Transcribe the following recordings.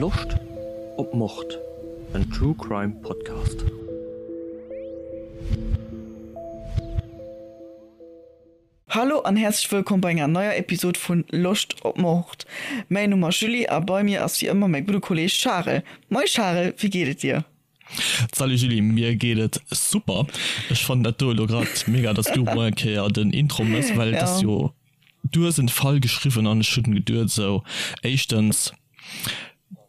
Loscht op Mord? En True Crime Podcast. Hallo an häerzlech wëllkomm bei enger neier Episode vun Loscht op Mord. Mäin Numm ass Julie a bei mir ass wéi ëmmer mäi gudde Kolleg Charel. Moi Charel, wéi geet et dir? Salut Julie, mir geet et super. Ech fannen dat do elo grad mega, dass du mol eng Kéier den Intro mëss, well et ass jo, du hues en Fall geschriwwen an ech hunn geduet esou, éischtens,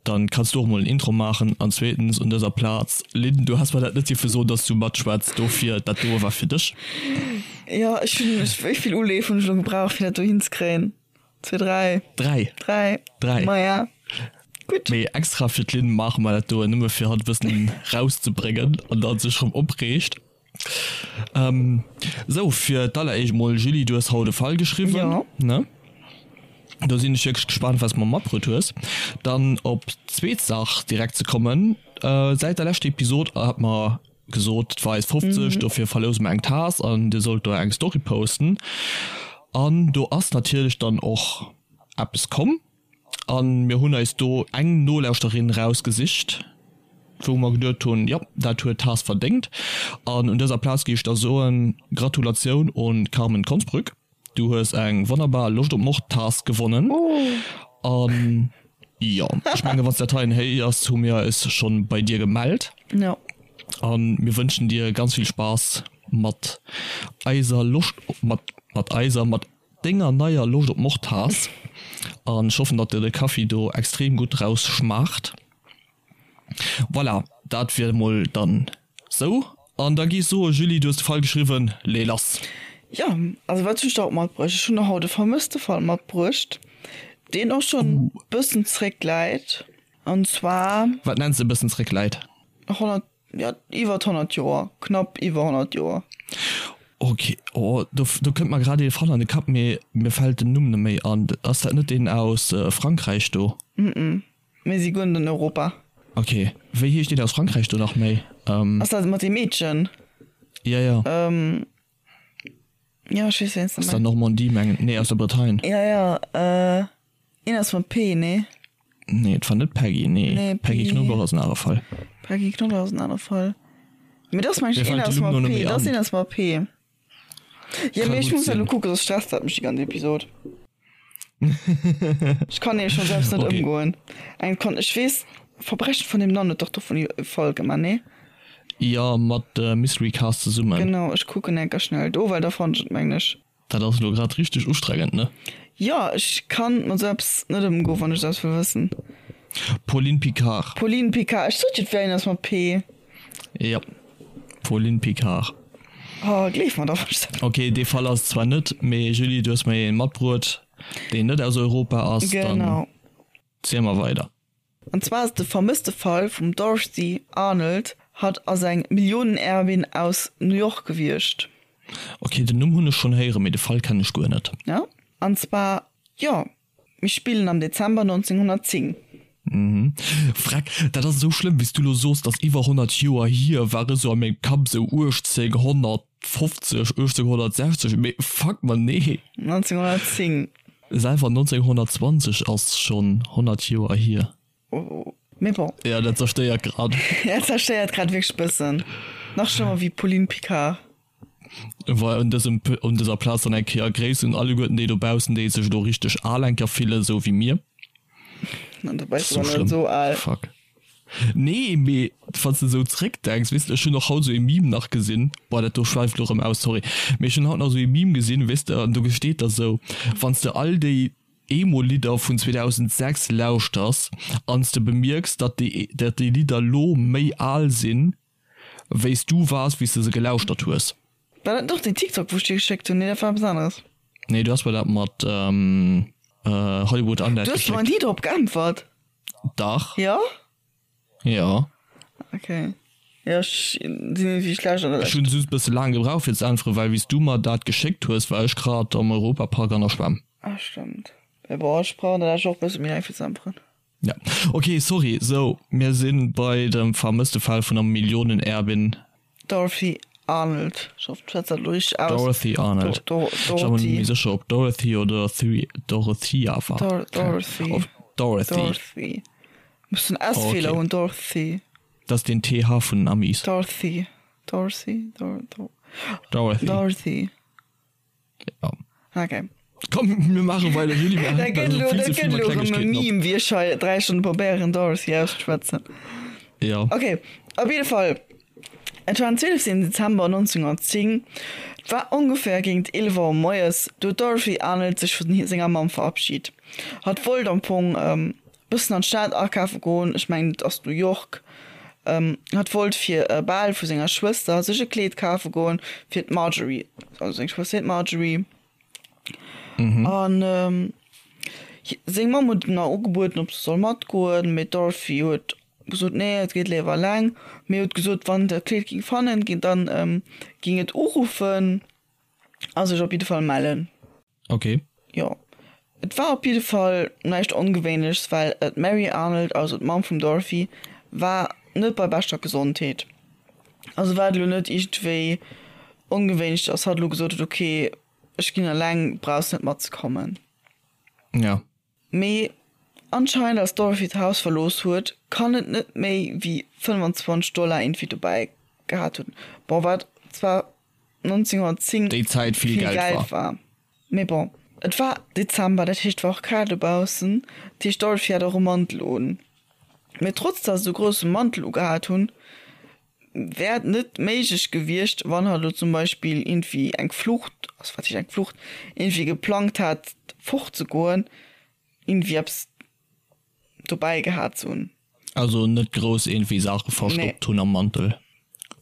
dann kanns du och mol en Intro maachen an zweetens un dëser Plaz, Lynn, du has mer dat net dierfe soen, dass du matschwätz, dofir dat doe war fir dech. Jo, ech hunn, wéi vill Uleef hunn ech elo gebraucht fir dat do hinzekréien? 2, 3. 3. 3. 3. Maja. Gutt. Mee extra fir d'Lynn maache mer dat doen, nëmme fir hatt e bëssen rauszebréngen an datt sech rëm opreegt. Ähm, sou, fir d'alleréischt mol, Julie, du hues haut e Fall geschriwwen, Jo. ne? Do sinn ech wierklech gespaant, wat s de mer matbruet hues. Dann op d'zweet Saach direkt ze kommen, Säit der leschter Episod hat mer gesot, et war eis 50, dofir verlouse mer eng Taass an dir sollt do eng Story posten. An do ass natierlech dann och eppes komm an mir hunn eis do eng Nolauschterin rausgesicht, wou mer geduet hunn, jo, dat huet d'Taass verdéngt. An un dëser Plaz géif ech da soen, Gratulatioun un d'Carmen Konsbrück. Du hues eng wonnerbar Loscht op Mord Taass gewonnen. An jo, ech mengen wanns dat heien héiers, hu mir eis schon bei dir gemellt. Jo. An mir wënschen dir ganz vill Spaass mat eiser Loscht op mat mat eiser mat denger neier Loscht op Mord Taass. An ech hoffen datt dir de Kaffi do extrem gutt raus schmaacht. Voilà, dat wier emol dann sou. An da gi ech soe, Julie, du hues de Fall geschriwwen, lee lass! Jo, also wat hunn ech da haut matbruecht? Ech hunn der haut e vermësste Fall matbruecht, deen och schonn e bëssen zréckläit. An zwar. Wat nenns de e bëssen zréckläit? 100, jo, iwwert 100 Joer, knapp iwwer 100 Joer. Ok, oh, do, do kënnt mer grad ee Fall an de Kapp, mee mir fält den Numm net méi an. Ass dat net deen aus Frankräich do? Mm-mm. Mir si guer net an Europa. Ok, wéi heescht deen aus Frankräich do nach méi? Ass dat mat deem Meedchen? Ja, ja. Jo, ech weess wéi s de Aus der Normandie mengen, nee aus der Bretagne. Ja, ja, een ass mat P, nee? Nee, et war net Peggy, nee. Nee, Peggy Knoblauch ass en anere Fall. Peggy Knoblauch ass en anere Fall. Mee dat ass mengen ech Mir een fält ass de Numm mat lo net P, méi dat ass an. een ass mat P. Jo, Ka mee ech gutt muss dat sinn. elo kucken, soss stresst dat mech déi ganz Episod. Ech kann nämlech schonn selbst net Okay. ëmgoen. Eng Sekonn, ech weess, Verbrechen von nebenan huet dach dovun e Fall gemaach, nee? Jo, mat Mystery Cast zesummen. Genau, ech kucken enker schnell do, well da fannen ech et, mengen ech. Dat ass elo grad richteg ustrengend, ne? Jo, ech kann mat esou eppes net ëmgoen, wann ech esou eppes wëll wëssen. Pauline Picard. Pauline Picard, ech sot jo, et wär een ass mat P. Jo, Pauline Picard. Oh, gleef mer da was. Ok, dee Fall ass et zwar net, mee Julie, du hues mer een matbruet, deen net aus Europa ass. Dann Genau. ziel mer weider. An zwar ass et de vermësste Fall vum Dorothy Arnold. Hatt ass eng Millionenerbin aus New York gewiescht. Ok, den Numm hunn ech schonn héieren, mee de Fall kennen ech guer net. Ja, an zwar, jo, Mir spillen am Dezember 1910. Mhm. Freck, dat ass esou schlëmm, wéi s du lo soos, dass iwwer 100 Joer hier, war esou a mengem Kapp esou 1850, 1860, mee fuck man, nee. 1910. Selwer 1920 ass schonn 100 Joer hier. Mee bon. Ja, dat zerstéiert grad. Dat zerstéiert grad wierklech bëssen. Nach schlëmmer wéi Pauline Picard. War un dësem un dëser Plaz dann eng Kéier Gréiss un alleguerten déi dobaussen, déi sech elo richteg al eng Kéier fillen, esou wéi mir. An dobäi So ass net schlëmm. esou al. Fuck. Nee, mee wann s de esou zréckdenks, weess de, ech hunn och haut esou ee Meme nach gesinn, boah, dat do schwäift elo erëm aus, sorry, mee ech hunn haut nach esou ee Meme gesinn, weess de, an do steet da sou, wann s de all déi Emo-Lidder vun 2006 lauschters an s de bemierks, datt déi datt déi Lidder lo méi al sinn, wéi s du waars, wéi s de se gelauschtert hues. War dat net och deen TikTok wou ech dir geschéckt hunn? Nee dat war eppes aneres. Nee du has mer dat mat Hollywood Undead Du hues mer geschéckt. ni drop geäntwert. Dach. Jo? Jo. Ok. Jo ech sinn iergendwéi schlecht an der Ech hunn just bësse laang gebraucht fir ze äntweren, well wéi s du mer dat geschéckt hues, war ech grad am Europapark an der Schwämm. Ah stëmmt. Mee bon ech brauchen dat eigentlech och bësse méi laang fir ze äntweren. Ja ok sorry, sou mir sinn bei dem vermësste Fall vun der Millionenerbin. Dorothy Arnold, ech hoffen ech schwätz dat elo richteg aus. Dorothy Arnold, Do, Do, ech war mer net méi sécher ob Dorothy oder Dorothea war. Dor, Dorothy. Dorothy. Dorothy. Muss den S-Feeler okay. hunn, Dorothy. Dat ass den TH vun den Amis. Dorothy. Dorothy. Dor Dor Dorothy. Dorothy. Ja. Okay. Komm, mir maache weider, Julie, mir Dat hänken gëtt elo elo, vill dat ze vill gëtt mat elo erëm e Klengegkeeten op. Meme, wéi ech hei 3 Stonne probéieren, Dorothy auszeschwätzen. Ja. Okay, op jidde Fall, et war den 12. Dezember 1910, et war ongeféier géint 11 Auer moies, do huet d'Dorothy Arnold sech vu senger Mamm verabschit. Hatt wollt am Fong bëssen an d'Stad akafe goen, ech mengen et ass New York, hatt wollt fir e Bal vu senger Schwëster sech e Kleed kafe goen fir d'Marjorie, also seng Schwëster heet Marjorie, an seng Mamm huet em nach ugebueden ob se soll matgoen, mee d'Dorothy huet gesot nee et geet léiwer eleng, mee huet gesot wann dat Kleed ging fannen ginn, dann ging et uruffen a sech op jidde Fall mellen. Ok. Jo, et war op jidde Fall näischt Ongewéinlechs, well d'Mary Arnold, also d'Mamm vum Dorothy, war net bei beschter Gesondheet. Also war et elo net iergendwéi ongewéinlech, dass hatt elo gesot huet, ok, ech ginn eleng, brauchs net matzekommen. Ja. Mee anscheinend als d'Dorothy d'Haus verlooss huet, kann et net méi wéi 25 Dollar iergendwéi dobäi gehat hunn. Bon, wat zwar 1910 Déi Zäit vill vill Geld Geld war. war. Mee bon, et war Dezember, dat heescht et war och kal dobaussen, dat heescht d'Dorothy hat och e Mantel un. Mee trotz dass et e grousse Mantel ugehat hunn, wär et net méiglech gewiescht, wann hatt elo zum Beispill iergendwéi eng Flucht, also wat heescht eng Flucht, iergendwéi geplangt hat fortzegoen, iergendwéi eppes dobäi gehat ze hunn. Also net grouss iergendwéi Saache Nee. verstoppt hunn am Mantel.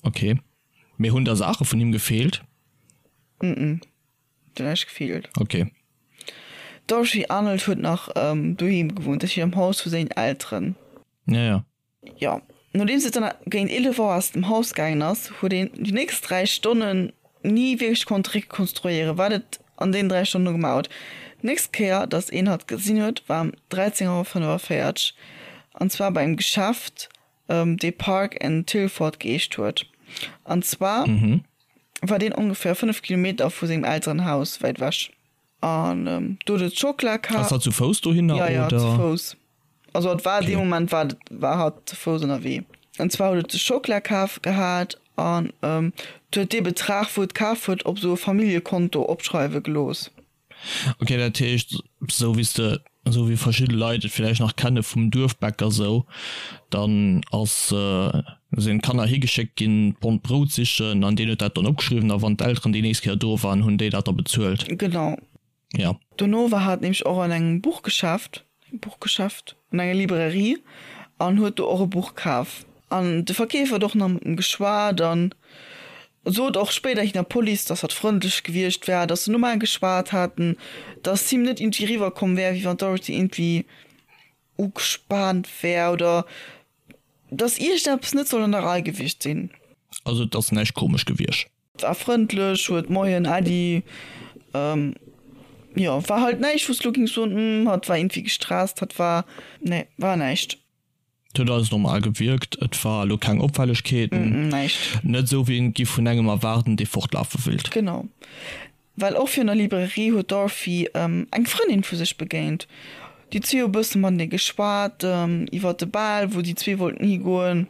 Ok. Mee hunn da Saache vun him gefeelt? Mm-mm, huet näischt gefeelt. Ok. D'Dorothy Arnold huet nach doheem gewunnt, dat heescht am Haus vu sengen Elteren. Ja, ja. Jo, nodeems et dann géint 11 Auer aus dem Haus gaangen ass, huet een déi nächst 3 Stonnen ni wierklech konnt rekonstruéieren, wat et an deenen 3 Stonne gemaach huet. D'nächst Kéier, datt een hatt gesinn huet, war ëm 13 Auer 45, an zwar bei engem Geschäft, dee Park and Tilford geheescht huet. An zwar war deen ongeféier 5 Kilometer vu sengem Elterenhaus wäit ewech. An do huet et Schockela ka. Ass hatt zu Fouss dohinner, Ja, ja, zu oder? Fouss. Also et war dee Okay. Moment war war hatt zu Fouss ënnerwee. An zwar huet et de Schockela kaf gehat an et huet dee Betrag wou et kaf huet op esou e Familljekonto opschreiwe gelooss. Ok, dat heescht esou wéi s de, esou wéi verschidde Leit et villäicht nach kenne vum Duerfbäcker esou, dann ass, sinn d'Kanner higeschéckt ginn d'Pond Brout sichen an deen huet dat dann opgeschriwwen a wann d'Elteren déi nächst Kéier do waren, hunn déi dat da bezuelt. Genau. Ja. Dono war hatt nämlech och an engem Buchgeschäft, Buchgeschäft, an enger Librairie an huet do och e Buch kaf. An de Verkeefer huet och nach mat em geschwat an sot och spéiderhin der Police, dass hatt frëndlech gewiescht wär, dass se normal geschwat haten, dass him net iergendwéi eriwwerkomm wär, wéi wann d'Dorothy iergendwéi ugespaant wär oder dass iergendeppes net soll an der Rei gewiescht sinn. Also et ass näischt komesch gewiescht. War frëndlech, huet Moien, Äddi, jo, war halt näischt, wou s de lo gings soen, hm, hatt war iergendwéi gestresst, hatt war, nee, war näischt. Et huet alles normal gewierkt, et war elo keng Opfällegkeeten, Näischt. net esou wéi een et giff vun engem erwaarden, dee fortlafe willt. Genau, well och virun der Librairie huet d'Dorothy eng Frëndin vu sech begéint. Déi zwee hu bësse matenee geschwat iwwer de Bal, wou déi zwee wollten higoen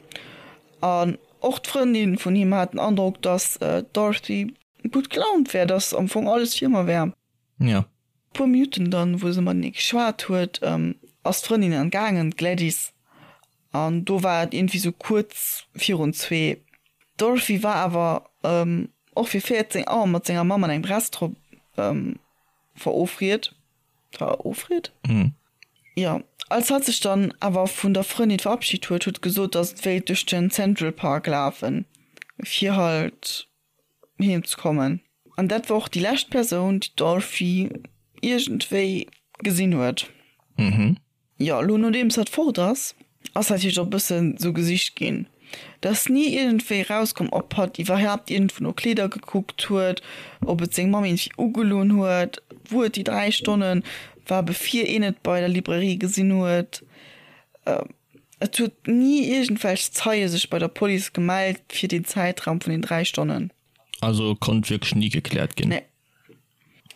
an Och d'Frëndin vun him hat den Androck, dass d'Dorothy gutt gelaunt wär, dass am Fong alles wéi ëmmer wär. Ja. Puer Minutten dann, wou se matenee geschwat huet, ass d'Frëndin dann gaangen, d'Gladys, an do war et iergendwéi sou kuerz virun zwee. D'Dorothy war awer och fir 14 Auer mat senger Mamm an engem Restaurant verofriet. Verofriet? Jo. Als hatt sech dann awer vun der Frëndin verabschit huet, huet gesot, dass et wéilt duerch den Central Park lafen, fir halt heem ze kommen. An dat war och déi lescht Persoun, déi d'Dorothy iergendwéi gesinn huet. Jo, elo nodeems hatt fort ass, ass natierlech och e bëssen sou gesicht ginn. Et ass ni iergendwéi erauskomm, ob hatt iwwerhaapt iergendwou no Kleeder gekuckt huet, ob et seng Mamm iergendwéi ugelunn huet, wou et déi 3 Stonne war, bevir een et bei der Librairie gesinn huet. Et huet ni iergendwelch Zeie sech bei der Police gemellt fir deen Zäitraum vun den 3 Stonnen. Also konnt wierklech ni gekläert ginn? Nee.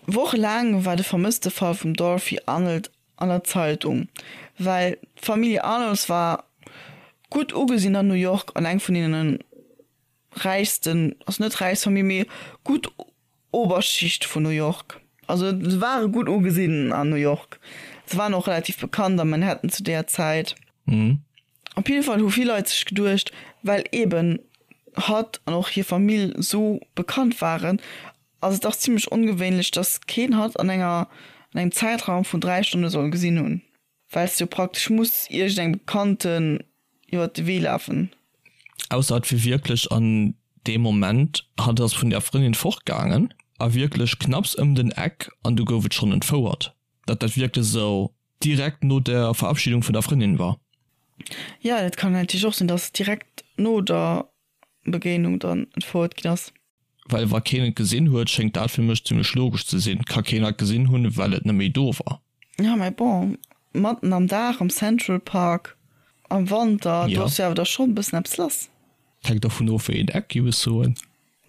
Wochelaang war de Vermësstefall vum Dorothy Arnold. an der Zeitung, well d'Familie Arnolds war gutt ugesinn an New York an eng vun deene räichsten, also net räichst Famill, mee gutt Oberschicht vun New York. Also se ware gutt ugesinn an New York. Se waren och relativ bekannt a Manhattan zu deeër Zäit. Op jidde Fall hu vill Leit sech geduecht, well eben hatt an och hir Famill sou bekannt waren, ass et dach zimmlech ongewéinlech, dass keen hatt an enger an engem Zäitraum vun 3 Stonne soll gesinn hunn, well s de jo praktesch muss iergendengem Bekannten iwwert de Wee lafen. Ausser et wier wierklech an deem Moment, hatt ass vun der Frëndin fortgaangen a wierklech knapps ëm den Eck an du gouf et schonn entfouert, datt dat wierklech esou direkt no der Verabschiedung vun der Frëndin war. Jo, dat kann natierlech och sinn, dass direkt no der Begéinung dann entfouert ginn ass. Well wa keen et gesinn huet, schéngt dat fir mech zimmlech logesch ze sinn. Ka keen et gesinn hunn, well et net méi do war. Jo, mä bon, matten am Dag am Central Park am Wanter, do ass jo awer da schonn e bëssen eppes lass. Hänkt dovun of, wéi een Eck, géif ech soen.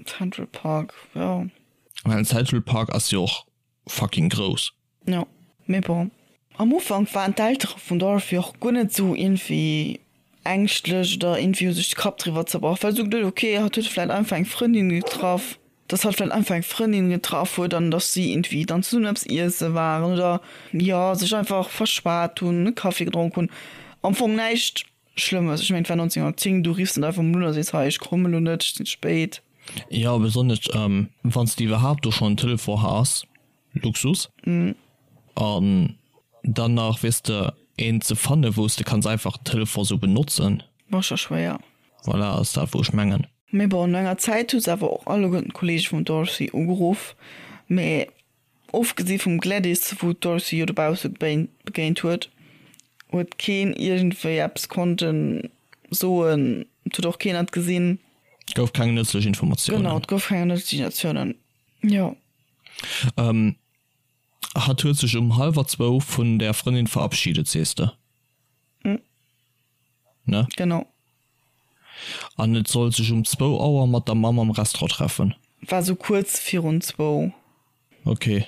Central Park, jo. Well den Central Park ass jo och fucking grouss. Jo, mee bon. Am Ufank waren d'Eltere vum Dorothy och guer net esou iergendwéi ängschtlech oder iergendwéi hu sech de Kapp driwwer zerbrach, well se hu geduet, ok, hatt huet vläit einfach eng Frëndin getraff, dass hatt vläit einfach eng Frëndin getraff huet an dass si iergendwéi dann zesummen eppes iesse waren oder jo, sech einfach verschwat hunn, e Kaffi gedronk hunn. Am Fong näischt Schlëmmes. Ech mengen, et war 1910, du riffs net einfach mol un a sees, hei, ech kommen elo net, ech sinn spéit. Jo, besonnesch wann s de iwwerhaapt do schonn en Telefon has. Luxus. An dann nach, weess de, een ze fannen, wou s de kanns einfach den Telefon sou benotzen. War scho schwéier. Voilà, ass dat, wou ech mengen. Mee bon, no enger Zäit hu se awer och alleguerten d'Kollege vum Dorothy ugeruff. Mee ofgesi vum Gladys, wou d'Dorothy jo dobausse begéint huet, huet keen iergendwéi eppes konnte soen. Et huet och keen et gesinn. Et gouf keng nëtzlech Informatiounen. Genau, et gouf keng nëtzlech Informatiounen. Jo. Ähm, hatt huet sech um hallwer zwou vun der Frëndin verabschiedet, sees de? Ne? Genau. An et sollt sech um zwou Auer mat der Mamm am Restaurant treffen. War sou kuerz virun zwou. Ok.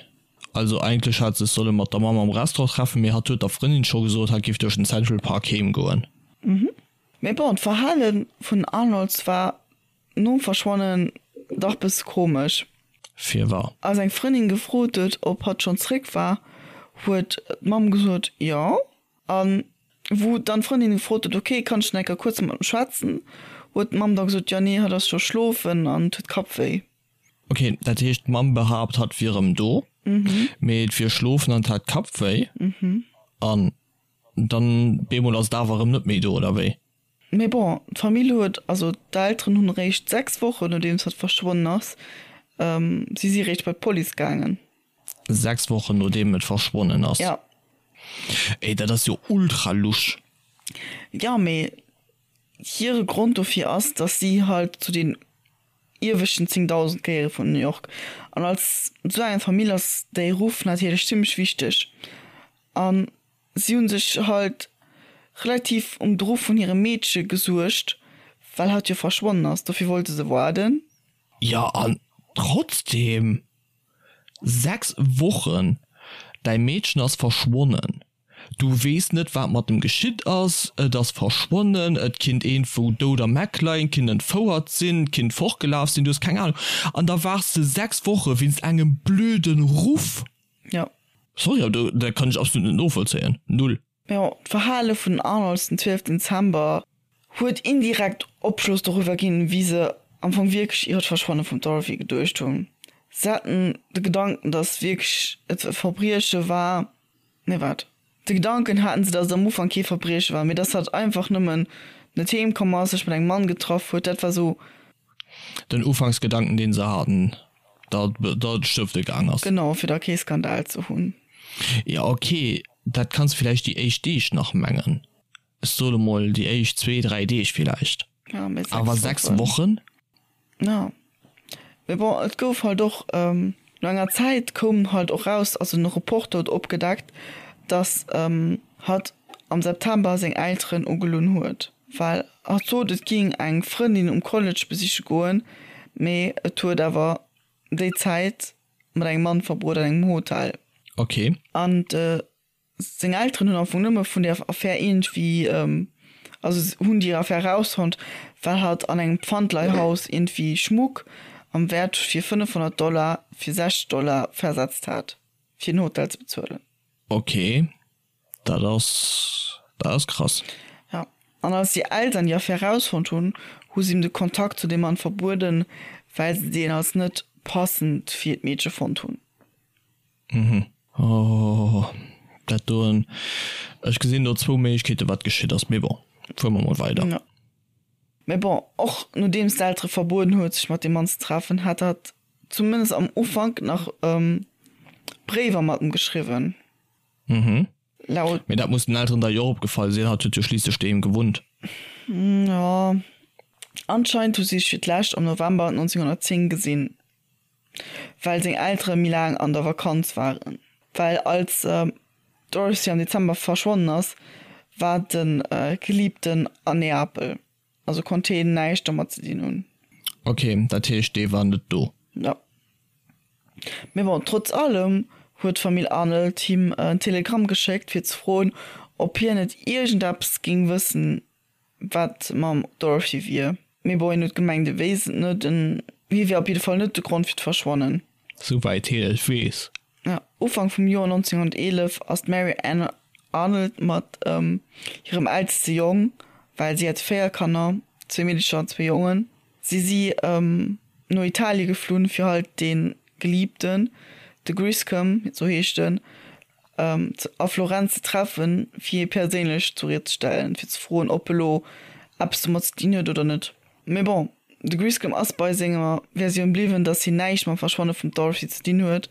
Also eigentlech hat sech solle mat der Mamm am Restaurant treffen, mee hatt huet der Frëndin scho gesot, hatt géif duerch den Central Park heem goen. Mee bon, d'Verhale vun Arnolds war Nom Verschwannen dach bësse komesch. Firwar? Als eng Frëndin gefrot huet, ob hatt schonn zréck war, huet d'Mamm gesot, jo. A wou dann d'Frëndin gefrot huet, ok, kann ech nach eng Kéier kuerz mat em schwätzen, huet d'Mamm da gesot, jo, nee, hatt ass scho schlofen an huet Kappwéi. Ok, dat heescht d'Mamm behaapt, hatt wier erëm do, mee et wier schlofen an hat Kappwéi. An dann bemol ass et awer erëm net méi do, oder wéi? Mee bon, d'Famill huet, also d'Elteren hunn eréischt 6 Wochen nodeems hatt verschwonnen ass, si si eréischt bei d'Police gaangen. 6 Wochen nodeem et verschwonnen ass? Ja. Ey, dat ass jo ultra lusch. Jo, mee hire Grond dofir ass, datt si halt zu den ieweschten 10.000 gehéiere vun New York. An als esou eng Famill ass déi Ruff natierlech zimmlech wichteg. An Si hunn sech halt relativ um de Ruff vun hirem Meedche gesuergt, well hatt jo verschwonnen ass, dofir wollte se waarden. Jo, an trotzdem, 6 Wochen, däi Meedchen ass verschwonnen, du weess net wat mat em geschitt ass, et ass verschwonnen, et kinnt iergendwou dout am Eck leien, kinnt entfouert sinn, kinnt fortgelaf sinn, du hues keng Ahnung, an da waarts de 6 Woche wéinst engem blöden Ruff. Jo. Sorry, awer do, dat kann ech absolut net novollzéien. Null. Jo, d'Verhale vun den Arnolds den 12 Dezember huet indirekt Opschloss doriwwer ginn, wéi se am Fong wierklech iwwer d'Verschwanne vum Dorothy geduecht hunn. Se haten de Gedanken, datt wierklech et e Verbrieche war, nee wat, de Gedanken haten se, datt et am Ufank kee Verbrieche war, mee datt hatt einfach nëmmen net heem komm ass, sech mat engem Mann getraff huet, dat war sou. Den Ufanksgedanken, deen se haten, datt et stëfte gaang ass. Genau, fir da kee Skandal ze hunn. Jo, ok, dat kanns villäicht déi éischt Deeg nach mengen. Ech soe mol déi éischt zwee, dräi Deeg villäicht. Ja, mee 6 Awer 6 Wochen? Ja. Mee bon, et gouf halt och, no enger Zäit koum halt och raus, also en Reporter huet opgedeckt, datt hatt am September seng Elteren ugelunn huet, well hatt sot, et géing eng Frëndin um College besiche goen, mee et huet awer déi Zäit mat engem Mann verbruet an engem Hotel. Okay. An de. Seng Elteren hunn am Fong nëmme vun där Affär iergendwéi, also hunn déi Affär erausfonnt, well hatt an engem Pfandleihhaus iergendwéi Schmuck am Wäert fir 500 Dollar fir 60 Dollar versetzt hat, fir den Hotel ze bezuelen. Ok, dat ass, dat ass krass. Jo, an als déi Eltern déi Affär erausfonnt hunn, hu si him de Kontakt zu deem Mann verbueden, well se deen als net passend fir d'Meedche fonnt hunn. Mhm. Oh, dat doen. Ech gesinn do zwou Méiglechkeeten, wat geschitt ass, mee bon, fuere mer mol weider. Jo. Mee bon, och nodeems d'Eltere verbueden huet, sech mat deem Mann ze treffen, hat hatt zumindest am Ufank nach Bréiwer mat em geschriwwen. Mhm. Laut. Mee dat muss den Elteren da jo och opgefall sinn, hatt huet jo schliisslech doheem gewunnt. Jo, anscheinend hu si sech fir d'lescht am November 1910 gesinn. Well seng Eltere méi laang an der Vakanz waren. Well als d'Dorothy am Dezember verschwonnen ass, war de Geliebten an Neapel, also konnt heen näischt domat ze dinn hunn. Ok, dat heescht dee war net do. Jo. Mee bon, trotz allem huet d'Famill Arnold him en Telegramm geschéckt fir ze froen, ob hien net iergendeppes géing wëssen wat mam Dorothy wier. Mee bon, hien huet gemengt, e wéisst et net, en hie wier op jidde Fall net de Grond fir d'Verschwannen. Souwäit hien et weess. Ja, Ufank vum Joer 1911 ass d'Mary Ann Arnold mat hirem eelste Jong, well si hat 4 Kanner, zwee Meedecher an zwee Jongen, si si no Italie geflunn, fir halt dee Geliebten, de Griscom, sou heescht en, a Florenz ze treffen, fir hie perséinlech zur Ried ze stellen, fir ze froen, ob e lo eppes domat ze dinn huet oder net. Mee bon, de Griscom ass bei senger Versioun bliwwen, datt hien näischt mam Verschwanne vum Dorothy ze dinn huet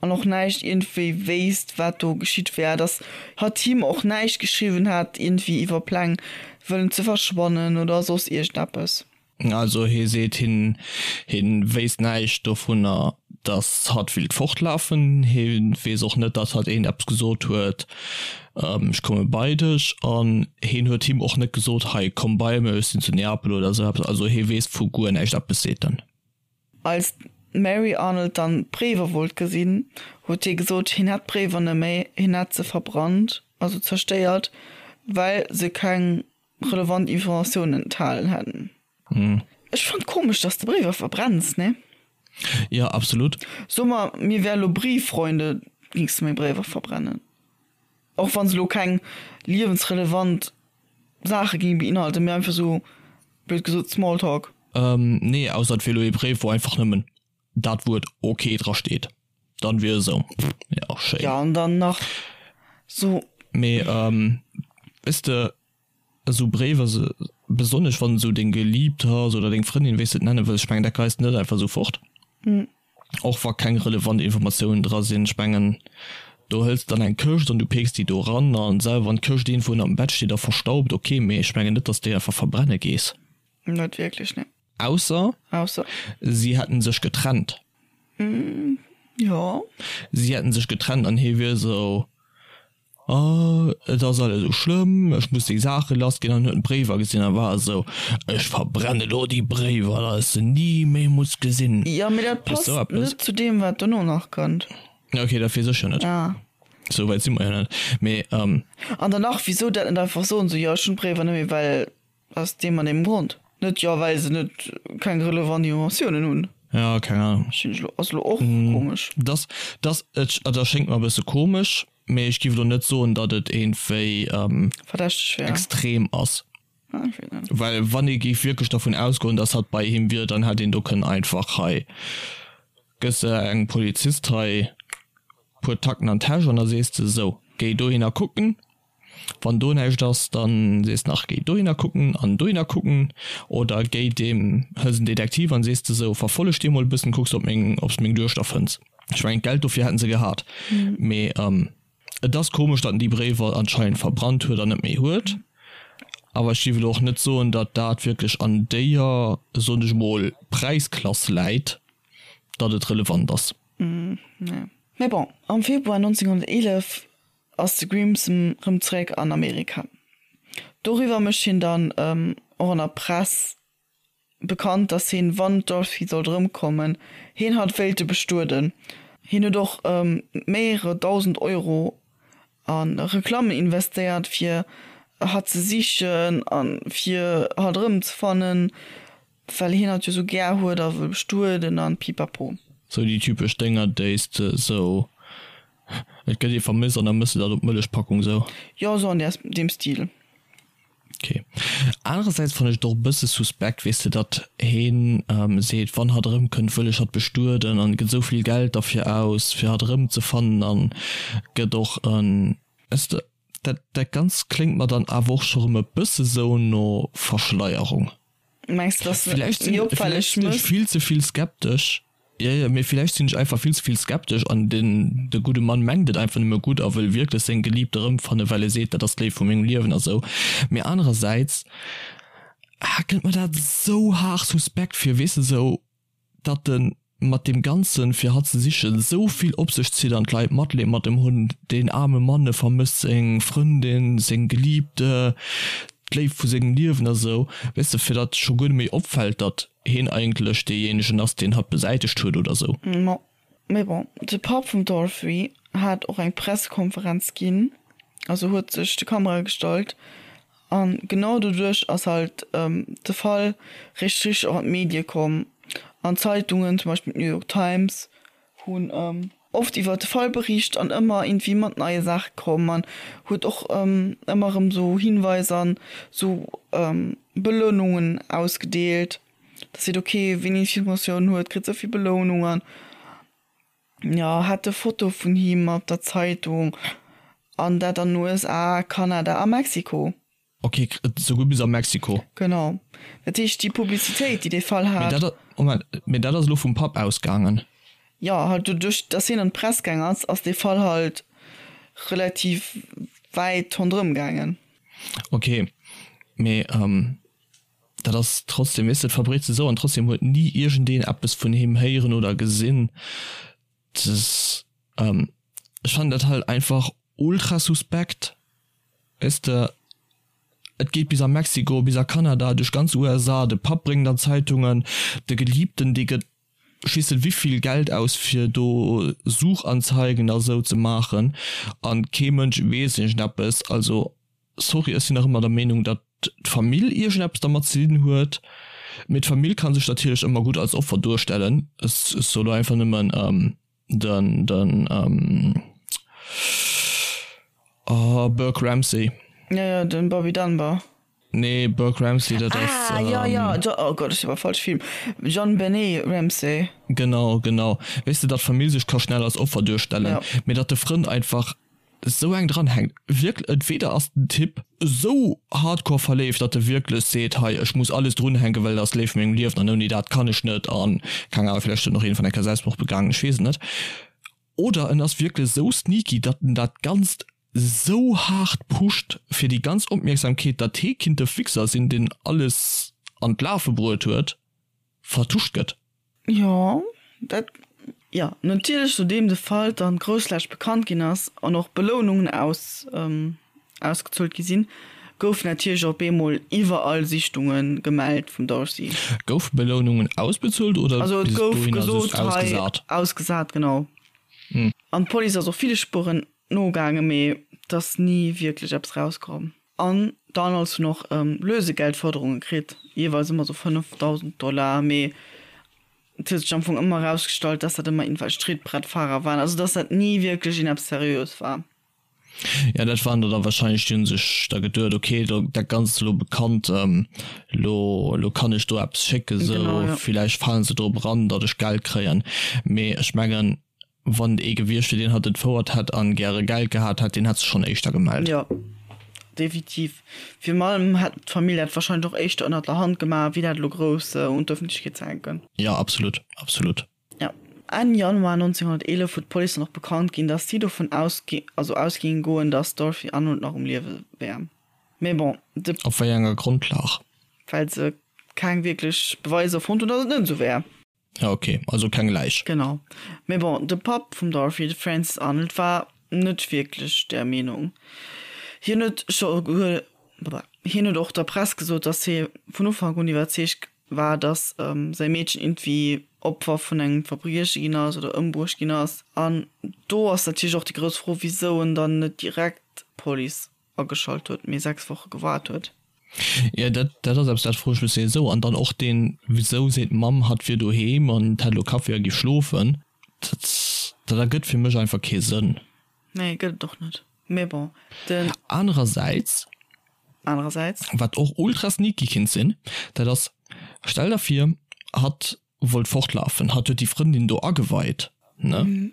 an och näischt iergendwéi wéisst, wat do geschitt wär, datt hatt him och näischt geschriwwen hat iergendwéi iwwer Pläng wëllen ze verschwannen oder soss iergendeppes. Also hie seet, hien hien wéisst näischt dovunner, datt hatt willt fortlafen. Hie weess och net, datt hatt een eppes gesot huet, ech komme bei dech. An hien huet him och net gesot, hei komm bei mech, ech sinn zu Neapel oder esou eppes. Also hie weess vu guer näischt eppes, seet en. Als d'Mary Arnold dann d'Bréiwer wollt gesinn, huet hie gesot, hien hätt d'Bréiwer net méi, hien hätt se verbrannt, also zerstéiert, well se keng relevant Informatiounen enthalen hätten. Ech fannt komesch dass de Bréiwer verbrenns, ne? Jo, absolut. So mer, mir wäre lo Brieffreunde, gings de meng Bréiwer verbrennen? Och wann se lo keng liewensrelevant Saache géinge beinhalten, mee einfach sou, blöd gesot, Smalltalk. Nee, ausser et wier lo ee Bréif wou einfach nëmmen dat Wuert ok dra steet, dann wier esou, jo schéin. Jo, an dann nach sou. Mee weess de, esou Bréiwer, besonnesch wann esou deng Geliibt ass oder deng Frëndin, wéi s de et nenne wëlls, ech mengen dat geis de net einfach esou fort, och wa keng relevant Informatiounen dra sinn. Ech mengen do hëls de dann eng Këscht an du peeks déi do eran an selwer wann d'Këscht iergendwou ënnert dem Bett steet a verstaubt, ok, mee ech mengen net, dass de déi einfach verbrenne gees. Net wierklech, nee. Ausser, Ausser. si hätten sech getrennt. Jo. Si hätten sech getrennt an hie wier esou, Oh, et ass alles esou schlëmm, ech muss déi Saache lass ginn. An huet d'Bréiwer gesinn a war esou, Ech verbrenne lo déi Bréiwer, datt ech se ni méi muss gesinn. Jo, mee dat Weess passt sou eppes? net zu deem, wat dono nach kënnt. Ok, dat weess ech jo net. Ah. Sou wäit si mer jo net. Mee, An dann nach, wisou dat net einfach soen, esou, jo, ech hunn d'Bréiwer net méi, well Aus deem an deem Grond. Net jo well se net keng relevant Informatiounen hunn. Ja, keng Ahnung. Ass lo och komesch. Dass, dass, et erschéngt mer e bësse komesch, mee ech giff elo net soen, datt et iergendwéi Verdächteg wär. extrem ass. Ah, ech weess net. Well wann ee géif wierklech dervun ausgoen, datt hatt bei him wier, dann hätt een do kënnen einfach hei gëss de engem Polizist hei puer Tacken an d'Täsch an da sees de, sou, géi dohinner kucken, Wann do näischt ass, dann sees nach géi dohinner kucken an dohinner kucken oder géi deem, hëls en Detektiv an sees de sou, verfolleg dee mol e bëssen, kucks ob meng, obs de meng Duechter fënns. Ech mengen d'Geld dofir hätten se gehat, mee et ass komesch datt en déi Bréiwer anscheinend verbrannt huet an net méi huet. Awer ech géif elo och net soen, datt dat wierklech an déier, soen ech mol, Präisklass läit, datt et relevant ass. Nee. Mee bon, am Februar 1911 ass de Grimson rëm zeréck an Amerika. Doriwwer mécht hien dann och an der Press bekannt, datt hien, wann d'Dorothy sollt erëmkommen, hien hatt wéilte bestueden. Hien huet och mehrere 1.000 Euro. A Reklammen investéiert fir hatt ze sichen a fir hatt erëmzefannen, well hien hatt jo sou gär huet a wëll bestueden an pipapo. Sou déi typesch Dénger déi s de sou, et gëtt ee vermësst an da mëss de dat op d'Mëllechpackung sou. Jo, sou an deem Stil. Ok. Anerersäits fannen ech et och e bësse suspekt, weess de, datt heen seet, wann hatt erëmkënnt, wëll ech hatt bestueden an gëtt esou vill Geld derfir aus, fir hatt erëmzefannen an gëtt och en, weess de, dat dat Ganzt kléngt mer dann awer och scho rëm e bësse sou no Verschleierung. Mengs de, datt Villäicht sinn, villäicht sinn ech vill ze vill skeptesch. Jo, jo, mee villäicht sinn ech einfach vill ze vill skeptesch an den, de gudde Mann mengt et einfach nëmme gutt a wëll wierklech seng Geliebte erëmfannen, well e seet, dat ass d'Léift vu mengem Liewen a sou. Mee anerersäits, ah, kënnt mer dat esou haart suspekt vir, weess de, sou datt e mat deem Ganzen, fir hatt ze sichen, esou vill op sech zitt an d'Leit Matleed mat em hunn, deen aarme Mann, e vermësst seng Frëndin, seng Geliebte, d'Léift vu sengem Liewen a sou, weess de, fir datt scho guer net méi opfält, datt. heen eigentlech deejéinegen ass, deen hatt besäitegt huet oder sou. Ma mee bon, de Papp vum Dorothy hat och eng Pressekonferenz ginn, also huet sech de Kamerae gestallt an genau doduerch ass halt de Fall richteg richteg och an d'Medie komm an d'Zeitungen, zum Beispill d'New York Times hunn oft iwwer de Fall bericht an ëmmer iergendwéi mat neie Saache komm an huet och ëmmer erëm sou Hinweiser an sou Belounungen ausgedeelt, dass seet ok wien Informatioun huet kritt esou vill Belounung an jo hat e Foto vun him op der Zeitung an dat an den USA, Kanada a Mexiko. Ok, souguer bis a Mexiko. Genau. Dat heescht, déi Publicitéit, déi dee Fall hat. Mee dat, Moment, mee dat ass elo vum Papp ausgaangen? Jo, halt doduerch, dass hien an d'Press gaang ass, ass dee Fall halt relativ wäit ronderëm gaangen. Ok, mee dat ass trotzdem, weess de, et verbreet sech esou an trotzdem huet ni iergendeen eppes vun him héieren oder gesinn. Ech fannen dat halt einfach ultra suspekt. Weess de, et geet bis a Mexiko, bis a Kanada, duerch ganz USA, de Papp bréngt an d'Zeitungen, de Geliebten, dee gëtt schiessen wivill Geld aus fir do Suchanzeigen a sou ze maachen an kee Mënsch weess iergendeppes. Also sorry, ech sinn nach ëmmer der Meenung, datt d'Famill iergendeppes dermat ze dinn huet, mee d'Famill ka sech natierlech ëmmer gutt als Opfer duerstellen. Ech soe lo einfach nëmmen, Den den ähm, oh, Burke Ramsey. Ja, ja, den Bobby Dunbar. Nee, Burke Ramsey, dat ass. Ah, ja, ja, jo, oh Gott, ech war falsch Film. JonBenét Ramsey. Genau, genau. Weess de, datt d'Famill sech ka schnell als Opfer duerstellen, ja. Mee datt de Frënd einfach esou eng dran hänkt. Wierklech, entweder ass den Typ esou hardcore verléift, datt e wierklech seet, hei ech muss alles drunhänken, well dat ass d'Léift vu mengem Liewen an ouni dat kann ech net an keng Ahnung, villäicht huet en och iergendwann eng Kéier Selbstmord begaangen, ech weess et net. Oder en ass wierklech esou sneaky, datt en dat Ganzt esou haart pusht fir déi ganz Opmierksamkeet, datt hee kinnt de Fixer sinn, deen alles an d'Lafe bruet huet, vertuscht gëtt. Jo, dat, jo, natierlech, nodeem de Fall dann groussflächeg bekannt ginn ass an och Belounungen aus, ausgezuelt gi sinn, goufen natierlech op eemol iwwerall Sichtunge gemellt vum Darcy. Goufe Belounungen ausbezuelt oder Also et bis gouf dohinner just gesot, hei, ausgesat? ausgesat, genau. An d'Police ass och ville Spueren nogaangen, mee et ass ni wierklech eppes rauskomm. An d'Arnolds hunn och Lösegeldforderunge kritt, jeeweils ëmmer sou 5.000 Dollar, mee et huet sech am Fong ëmmer erausgestallt, dass dat ëmmer irgendwelch Trittbrettfahrer waren, also dass dat ni wierklech een eppes Seriöes war. Ja, dat waren der da wahrscheinlech, déi hu sech da geduet, ok, dat Ganzt ass elo bekannt, elo elo kann ech do eppes schécken, sou villäicht falen se drop eran, datt ech Geld kréien. Mee ech mengen, Wann et ee gewiescht wier, deen hatt entfouert hätt an gäre Geld gehat hätt, deen hätt sech schonn éischter gemellt. Jo, definitiv. Virun allem hätt d'Famill dat wahrscheinlech och éischter ënnert der Hand gemaach, wéi dat elo grouss un d'Ëffentlechkeet ze hänken. Jo, absolut, absolut. Jo. Enn Januar 1911 huet d'Police dann och bekannt ginn, datt si dovun ausgi also ausgingen goen, datt d'Dorothy Arnold nach um Liewe wär. Mee bon, de. Op wéi enger Grondlag? Well se keng wierklech Beweiser fonnt hunn, datt et net esou wär. Ja ok, also keng Läich. Genau. Mee bon, de Papp vum Dorothy, de Francis Arnold, war net wierklech där Meenung. Hien huet scho hien huet och der Press gesot, datt hie vun Ufank un iwwerzeegt war, datt säi Meedchen iergendwéi. Opfer vun engem Verbrieche ginn ass oder ëmbruecht ginn ass. An do ass natierlech och déi grouss Fro, wisou en dann net direkt d'Police ageschalt huet, mee 6 Woche gewaart huet. Jo, dat, dat ass eppes, dat froe ech mech souwisou. An dann och deen, wisou seet d'Mamm, hatt wier doheem an hätt elo Kaffi a géif schlofen. Dat, dat ergëtt fir mech einfach kee Sënn. Nee, gëtt et och net. Mee bon, den. Anerersäits. Anerersäits. Wat och ultra sneaky kinnt sinn, dat ass, stell der vir, hatt wollt fortlafen, hatt huet déi Frëndin do ageweit, ne?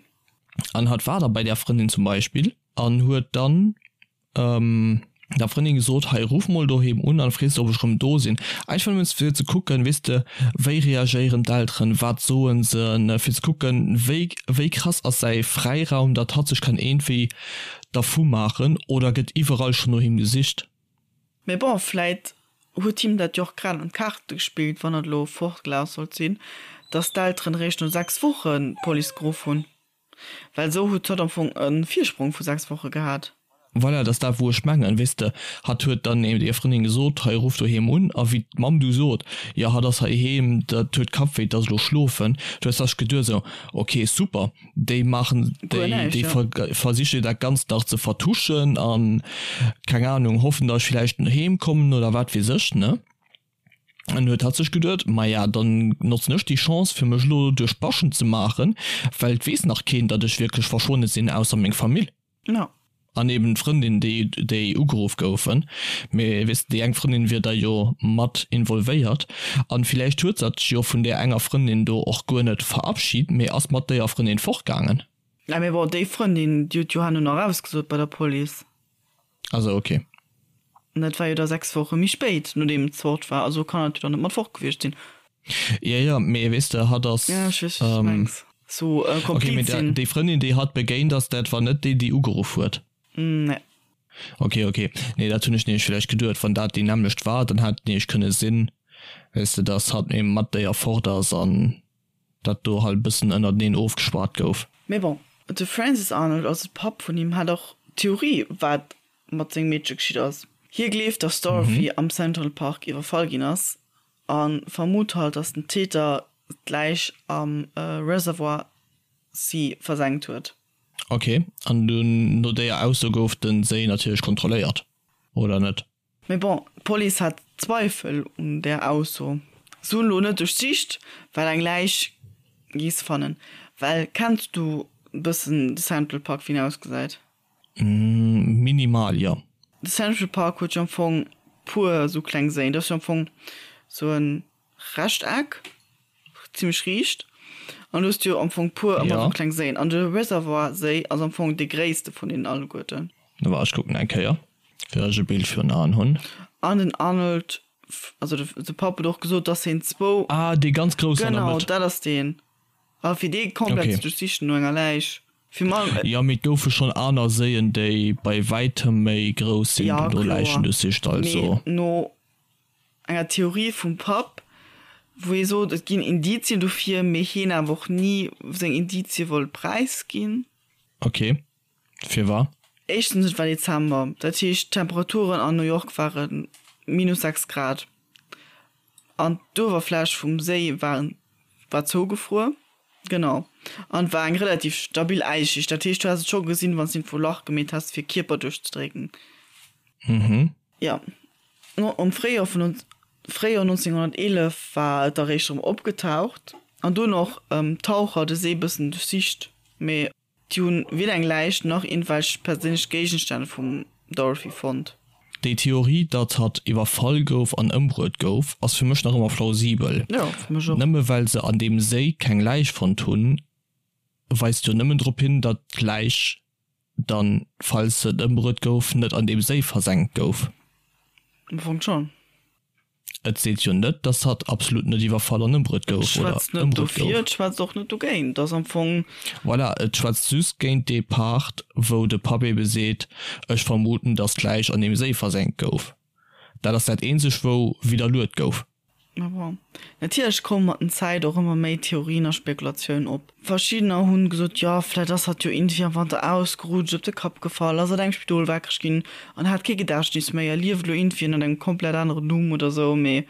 An hatt war da bei där Frëndin zum Beispill an huet dann der Frëndin gesot, hei ruff mol doheem un an frees ob ech rëm do sinn. Einfach nëmmen fir ze kucken, weess de, wéi reagéieren d'Elteren, wat soen se, ne, fir ze kucken, wéi wéi krass ass säi Fräiraum, datt hatt sech kann iergendwéi dervu maachen oder gëtt iwwerall schonn no him gesicht. Mee bon, vläit huet him dat jo och grad an d'Kaarte gespillt, wann et elo fortgelaf sollt sinn, datt d'Elteren eréischt no 6 Wochen d'Police geruff hunn. Well esou huet hatt am Fong e Virsprong vu 6 Woche gehat. Voilà, dat ass dat wou ech mengen, weess de, hatt huet dann eben der Frëndin gesot, hei ruff doheem un, a wéi d'Mamm du sot, jo hatt ass heiheem, dat huet Kappwéi, dat ass elo schlofen, du hues dach geduet esou, ok super, déi maachen, Guer déi, näischt, déi ja. versiche dat Ganzt nach ze vertuschen an, keng Ahnung, hoffen, datt ech villäicht heem kommen oder wat weess ech, ne? An huet hatt sech geduet, Maja, dann notzen ech déi Chance, fir mech elo duerch d'Baschen ze maachen, well et weess nach keen, datt ech wierklech verschwonne sinn, ausser meng Famill. Ja. An eben d'Frëndin, déi, déi ugeruff goufen. Mee weess de, déi eng Frëndin wier da jo mat involvéiert. An villäicht huet s'at jo vun där enger Frëndin do och guer net verabschid, mee ass mat déier Frëndin fortgaangen. Ja, mee bon, déi Frëndin, déi huet jo herno nach ausgesot bei der Police. Also ok. An dat war jo da 6 Woche méi spéit, nodeem et fort war. Also kann et jo dann net mat fort gewiescht sinn. Jo, jo, mee weess de, hatt ass. Ja, ech weess, wat s du mengs. Sou e Ok, mee Kompliz sinn. déi Frëndin, déi hatt begéint ass, dat war net déi, déi ugeruff huet? Nee. Ok, ok. Nee, dat hunn ech nämlech villäicht geduet, wann dat déi nämmlecht war, dann hätt et nämlech kënne sinn, weess de, dass hatt mat mat déier fort ass an. dat do halt e bëssen ënnerteneen ofgeschwat gouf. Mee bon, de Francis Arnold, also de Papp vun him, hat och d'Theorie, wat mat sengem Meedche geschitt ass. Hie gleeft, dass d'Dorothy am Central Park iwwerfall ginn ass a vermutt halt, dass den Täter d'Läich am Reservoir Sea versenkt huet. Ok, an dunn no déier Ausso gouf den Séi natierlech kontrolléiert, oder net? Mee bon, d'Police hat Zweifel un där Ausso. Se hunn elo net duerchsicht, well eng Läich gees fannen. Well kenns du bëssen de Central Park, wéi en ausgesäit? Minimal, jo. De Central Park huet jo am Fong puer esou kleng Séien. Dat ass jo am Fong esou en Rechteck, zimmlech riicht, an du hues jo am Fong puer ëmmer sou kleng Séien, an de Reservoir Séi ass am Fong dee gréisste vun deenen alleguerten. Wa ech kucken eng Kéier, fir ech e Bild virun Aen hunn. An den Arnold, also de Papp huet och gesot, dass hien zwou. Ah, dee ganz groussen an der Mëtt. Genau, dat ass deen. A fir dee komplett ze duerchsichen no enger Läich, fir mal. Jo, mee et goufe schonn aner Séien, déi bei wäitem méi grouss sinn, wou do Läichen duerchsicht, also. Mee no enger Theorie vum Papp, wou hie sot, et ginn Indizien dofir, mee hien awer och ni seng Indizie wollt präisginn. Ok, firwar? Éischtens, et war Dezember, dat heescht d'Temperaturen an New York ware minus 6 Grad an d'Uewerfläch vum Séi war war zougefruer. Genau, an et war eng relativ stabil Äisschicht, dat heescht du häss et scho gesinn, wann s de iergendwou e Lach gemeet häss fir Kierper duerchzedrécken. Mhm. Jo, am Fréijoer vun Fréijoer 1911 war et eréischt erëm opgetaucht an dunn och d'Taucher de Séi bëssen duerchsicht, mee déi hunn weder eng Läich nach iergendwelch perséinlech Géigenstänn vum Dorothy fonnt. Déi Theorie, datt hatt iwwerfall gouf an ëmbruet gouf, ass fir mech nach ëmmer plausibel. Jo, fir mech och. Nëmme well se an deem Séi keng Läich fonnt hunn, weist jo nëmmen drop hin, datt d'Läich dann, falls se ëmbruet gouf, net an deem Séi versenkt gouf. Am Fong schon. Et seet jo net, dass hatt absolut net iwwerfall an ëmbruet Et gouf oder schwätzt net ëmbruet dofir, gouf. et schwätzt och net dogéint. Et ass am Fong. Voilà, et schwätzt just géint dee Part, wou de Papp ebe seet, ech vermuten, dass d'Läich an deem Séi versenkt gouf. Dat ass dat eenzegt, wou widderluet gouf. Mä bon, natierlech komme mat den Zäit och ëmmer méi Theorien a Spekulatioun op. Verschiddener hunn gesot, jo vläit ass hatt jo iergendwéi am Wanter ausgerutscht, op de Kapp gefall, ass an engem Spidol wakereg ginn an hat kee Gedächtnis méi a lieft elo iergendwéi ënnert engem komplett aneren Numm oder sou. Mee.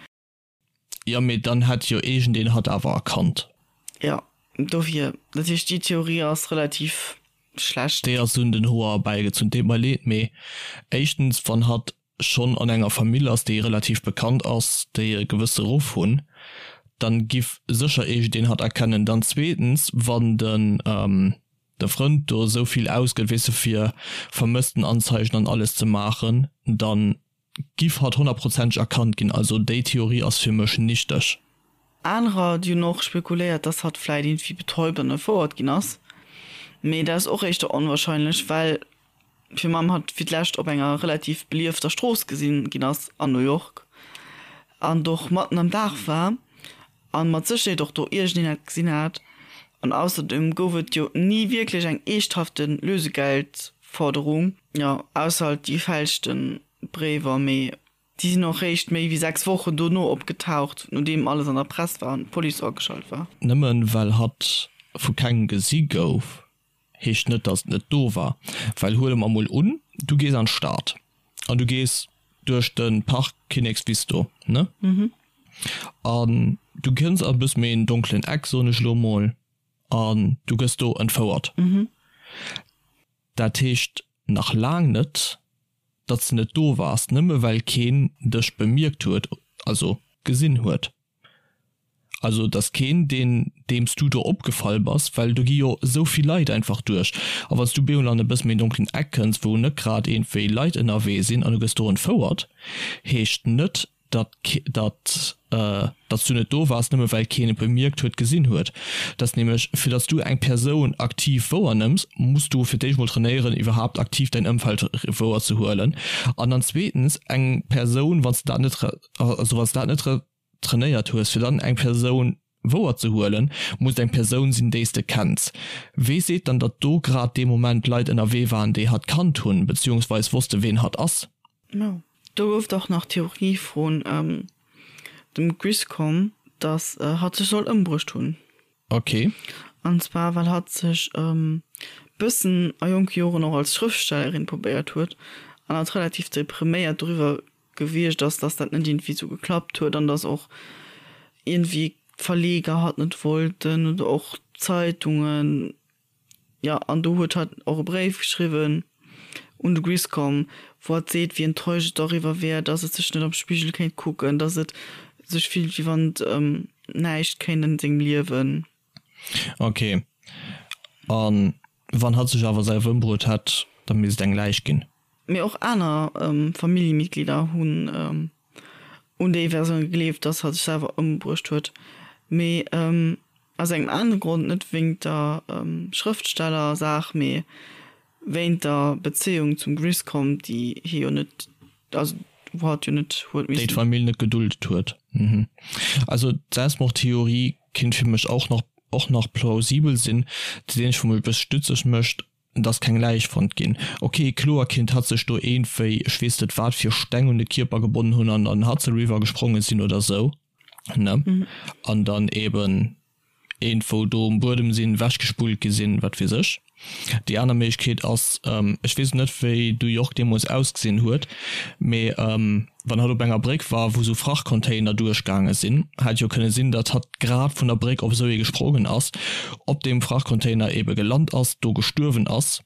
Jo, mee dann hätt jo iergendeen hatt awer erkannt. Jo, dofir, dat heescht déi Theorie ass relativ schlecht. Déi ass un den Hoer erbäigezunn. Deet mer leed, mee éischtens, wann hatt schonn an enger Famill ass, déi relativ bekannt ass, déi e gewësse Ruff hunn, dann giff sécher iergendeen hatt erkennen. Dann zweetens, wann den de Frënd do esou vill ausgëtt, weess de, fir Vermësstenanzeigen an alles ze maachen, dann giff hatt honnertprozenteg erkannt ginn. Also déi Theorie ass fir mech nichteg. Anerer, déi hunn och spekuléiert, dass hatt vläit iergendwéi betäubt an entfouert ginn ass, mee dat ass och éischter onwahrscheinlech, well fir Mamm hatt fir d'lescht op enger relativ beliefter Strooss gesinn ginn ass an New York an et och matten am Dag war an mat Sécherheet och do iergendeen hat gesinn hat. An ausserdem gouf et jo ni wierklech eng eeschthafte Lösegeldforderung, jo ausser halt déi gefälschte Bréiwer, mee déi sinn och réischt méi wéi 6 Wochen dono opgetaucht, nodeem alles an der Press war an d'Police ageschalt war. Nëmmen well hatt vu kengem gesi gouf, heescht net dass et net do war, well huele mer mol un du gees an d'Stad an du gees duerch de Park Kinnekswiss do ne an du kënns an e bësse méi en donkelen Eck soen ech elo mol an du gëss do entfouert. Dat heescht nach laang net datt s de net do waars, nëmme well keen dech bemierkt huet, also gesinn huet. Also et ass keen, deen, deem s du do opgefall bass, well do gi jo esou vill Leit einfach duerch. A wann s du bemol an e bësse méi donkelen Eck kënns, wou net grad iergendwéi Leit ënnerwee sinn an du gëss do entfouert, heescht net, datt, datt, datt s du net do waars, nëmme well keen et bemierkt huet, gesinn huet. Et ass nämlech, fir datt s du eng Persoun aktiv wouernëmms, muss du fir d'éischt mol trainéieren, iwwerhaapt aktiv däin Ëmfeld wouerzehuelen. An dann zweetens, eng Persoun, wann s de dat net, also wann s de dat net trainéiert hues, fir dann eng Persoun wouer ze huelen, muss et eng Persoun sinn, déi s de kenns. Wee seet dann, datt do grad dee Moment Leit ënnerwee waren, déi hatt kannt hunn, beziehungsweis wosste ween hatt ass? No. Do gouf et och nach d'Theorie vun dem Griscom, datt hatt sech soll ëmbruecht hunn. Ok. An zwar well hatt sech e bëssen a jonke Joren och als Schrëftstellerin probéiert huet an hatt relativ depriméiert doriwwer gewiescht ass, dass dat net iergendwéi sou geklappt huet an dass och iergendwéi d'Verleger hatt net wollten oder och d'Zeitungen. Jo, an do huet hatt och e Bréif geschriwwen un de Griscom, wou hatt seet, wéi enttäuscht et doriwwer wär, dass et sech net am Spigel kéint kucken, dass et sech fillt, wéi wann et ëm näischt kéint an sengem Liewen. Ok. A wann hatt sech awer selwer ëmbruet hätt, da misst et eng Läich ginn. Mee och aner Familljemitglieder hunn un déi Versioun gegleeft, dass hatt sech selwer ëmbruecht huet. Mee aus engem anere Grond, net wéingt der Schrëftsteller-Saach, mee wéint der Bezéiung zum Griscom, déi hie jo net, also wou hatt jo net huet missen. Déi d'Famill net geduldet huet. Also d'Selbstmordtheorie kinnt fir mech och nach och nach plausibel sinn. Dat eenzegt wou mech e bësse stutzeg mécht, Et ass keng Läich fonnt ginn. Ok, kloer kinnt hatt sech do eenwéi ech weess net wat fir Steng un de Kierper gebonnen hunn an an den Hudson River gesprongen sinn oder sou, ne? An dann eben eenwou do um Buedem sinn, wechgespullt gi sinn, wat weess ech. Déi aner Méiglechkeet ass, ech weess net wéi New York deemools ausgesinn huet, mee wann hatt op enger Bréck war, wou sou Frachtcontainer duerchgaange sinn, hätt jo kënne sinn, datt hatt grad vun der Bréck op esou ee gesprongen ass, op deem Frachtcontainer ebe gelant ass, do gestuerwen ass,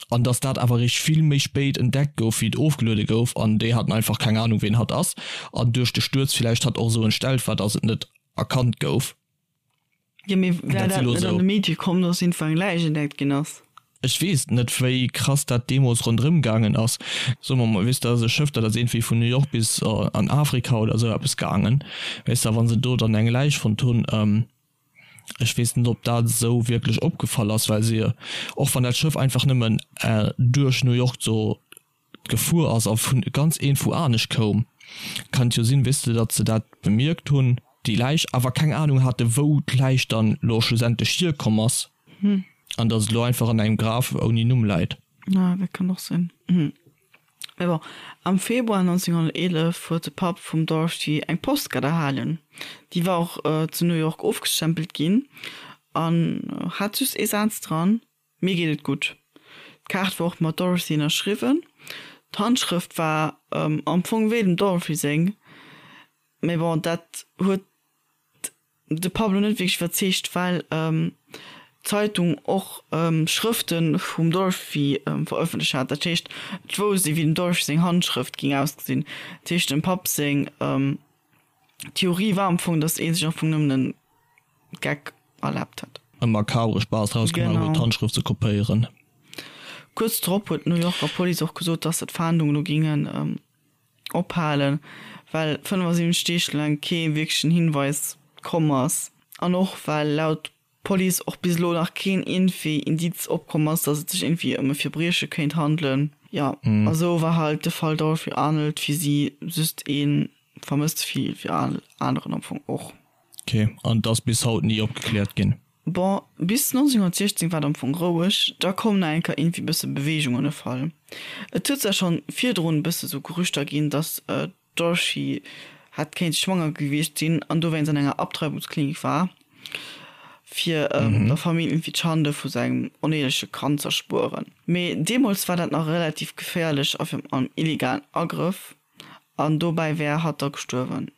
an datt dat awer eréischt vill méi spéit entdeckt gouf, wéi et ofgeluede gouf, an déi haten einfach keng Anung, ween hatt ass, an duerch de Stuerz villäicht hatt och esou entstellt war, datt et net erkannt gouf. Jo, mee wär dat net an de Medie komm, dass iergendwou eng Läich entdeckt ginn ass? Ech weess net, wéi krass dat deemools ronderëm gaangen ass. Soe mer mol, weess de, dat ass e Schëff, dat ass iergendwéi vun New York bis an Afrika oder esou eppes gaangen. Weess de, a wa se do dann eng Läich fonnt hunn, ech weess net, ob dat esou wierklech opgefall ass, well se, och wann dat Schëff einfach nëmmen duerch New York do gefuer ass a vun ganz iergendwou anescht koum, kann et jo sinn, weess de, datt se dat bemierkt hunn, déi Läich, awer keng Anung hate wou d'Läich dann elo schlussendlech hierkomm ass an datt et elo einfach an engem Graf ouni Numm läit. Ah, dat kann och sinn. Mee bon, am Februar 1911 huet de Papp vum Dorothy eng Postkaart erhalen. Déi war och zu New York ofgestempelt ginn an hat just ee Saz dran, Mir geet et gutt. D'Kaart war och mat Dorothy ënnerschriwwen. D'Handschrëft war am Fong wéi dem Dorothy seng, mee bon, dat huet. de Pablo net wierklech iwwerzeegt, well d'Zeitung och Schrëfte vum Dorothy verëffentlecht hat. Dat heescht, et wousst ee wéi dem Dorothy seng Handschrëft géing ausgesinn. Dat heescht, dem Papp seng Theorie war am Fong, datt ee sech am Fong nëmmen e Geck erlaabt hat. E makabre Spaass draus gemaach huet, d'Handschrëft ze kopéieren. Kuerz drop huet d'New Yorker Police och gesot, datt se d'Fahndung elo géingen ophalen, well 75 Deeg laang kee wierklechen Hinweis komm ass an och well laut Police och bis elo nach keen iergendwéi Indiz opkomm ass, datt et sech iergendwéi ëm e Verbrieche kéint handelen. Jo, a sou war halt de Fall Dorothy Arnold fir si just ee Vermësste wéi fir all aneren am Fong och. Ok, an et ass bis haut ni opgekläert ginn? Bon, bis 1916 war et am Fong roueg, da koum nach eng Kéier iergendwéi bësse Beweegung an de Fall. Et huet zwar schonn virdrun e bësse sou Gerüchter ginn, datt d'Dorothy hätt kéinte schwanger gewiescht sinn an dowéinst an enger Abtreibungsklinik war, fir der Famill iergendwéi d'Schande vu sengem oneeleche Kand z'erspueren. Mee deemools war dat nach relativ geféierlech a virun allem illegalen Agrëff an dobäi wär hatt da gestuerwen.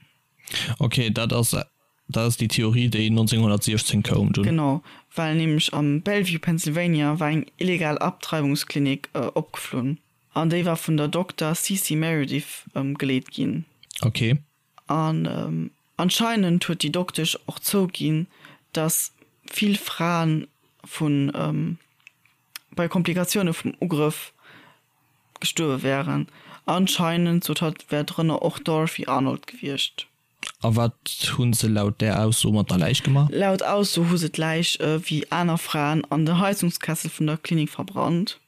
Ok, dat ass dat ass déi Theorie, déi 1916 koum dunn. Genau, well nämlech am Bellevue, Pennsylvania war eng illegal Abtreibungsklinik opgeflunn an déi war vun der Dokter Cece Meredith geleet ginn. Ok. An anscheinend huet déi Doktesch och zouginn, dass vill Fraen vu bei Komplikatioune vum Ugrëff gestuerwe wären. Anscheinend, sot hatt, wär drënner och d'Dorothy Arnold gewiescht. A wat hu se laut där Ausso mat der Läich gemaach? Laut Ausso hu se d'Läich wéi aner Fraen an den Heizungskessel vun der Klinik verbrannt.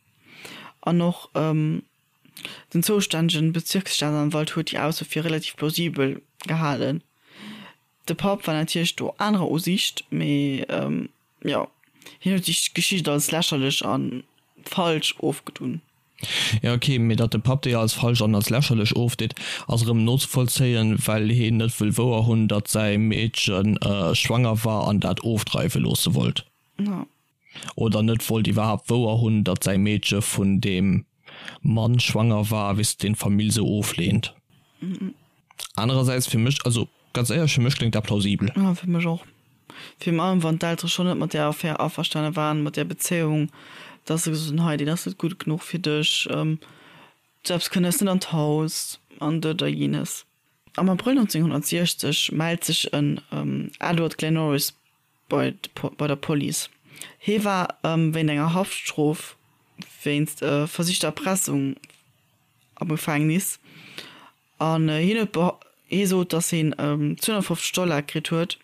An och den zoustännegen Bezirksstaatsanwalt huet déi Ausso fir relativ plausibel gehalen. De Papp war natierlech do anerer Usiicht, mee jo, hien huet déi Geschicht als lächerlech a falsch ofgedun. Jo ok, mee datt de Papp déi als falsch an als lächerlech ofdeet, ass erëm nozevollzéien, well heen net wëll wouer hunn, datt säi Meedche schwanger war an dat ofdreiwe loosse wollt. Oder net wollt iwwerhaapt wouer hunn, datt säi Meedche vun deem Mann schwanger war, weess de, deen d'Famill sou ofleent. Anerersäits, fir mech, also ganz éierlech, fir mech kléngt dat plausibel. Jo, fir mech och. Virun allem wann d'Eltere schonn net mat där Affär averstane waren, mat där Bezéiung, dass se gesot hunn, hei, deen ass net gutt genuch fir dech, sou eppes kënnt eis net an d'Haus an dat a jenes. Am Abrëll 1960 mellt sech en Edward Glennorris bei bei der Police. Hie war wéint enger Haftstrof wéinst versichter Erpressung am Gefängnis an hien huet hie sot, datt hien 250 Dollar kritt huet,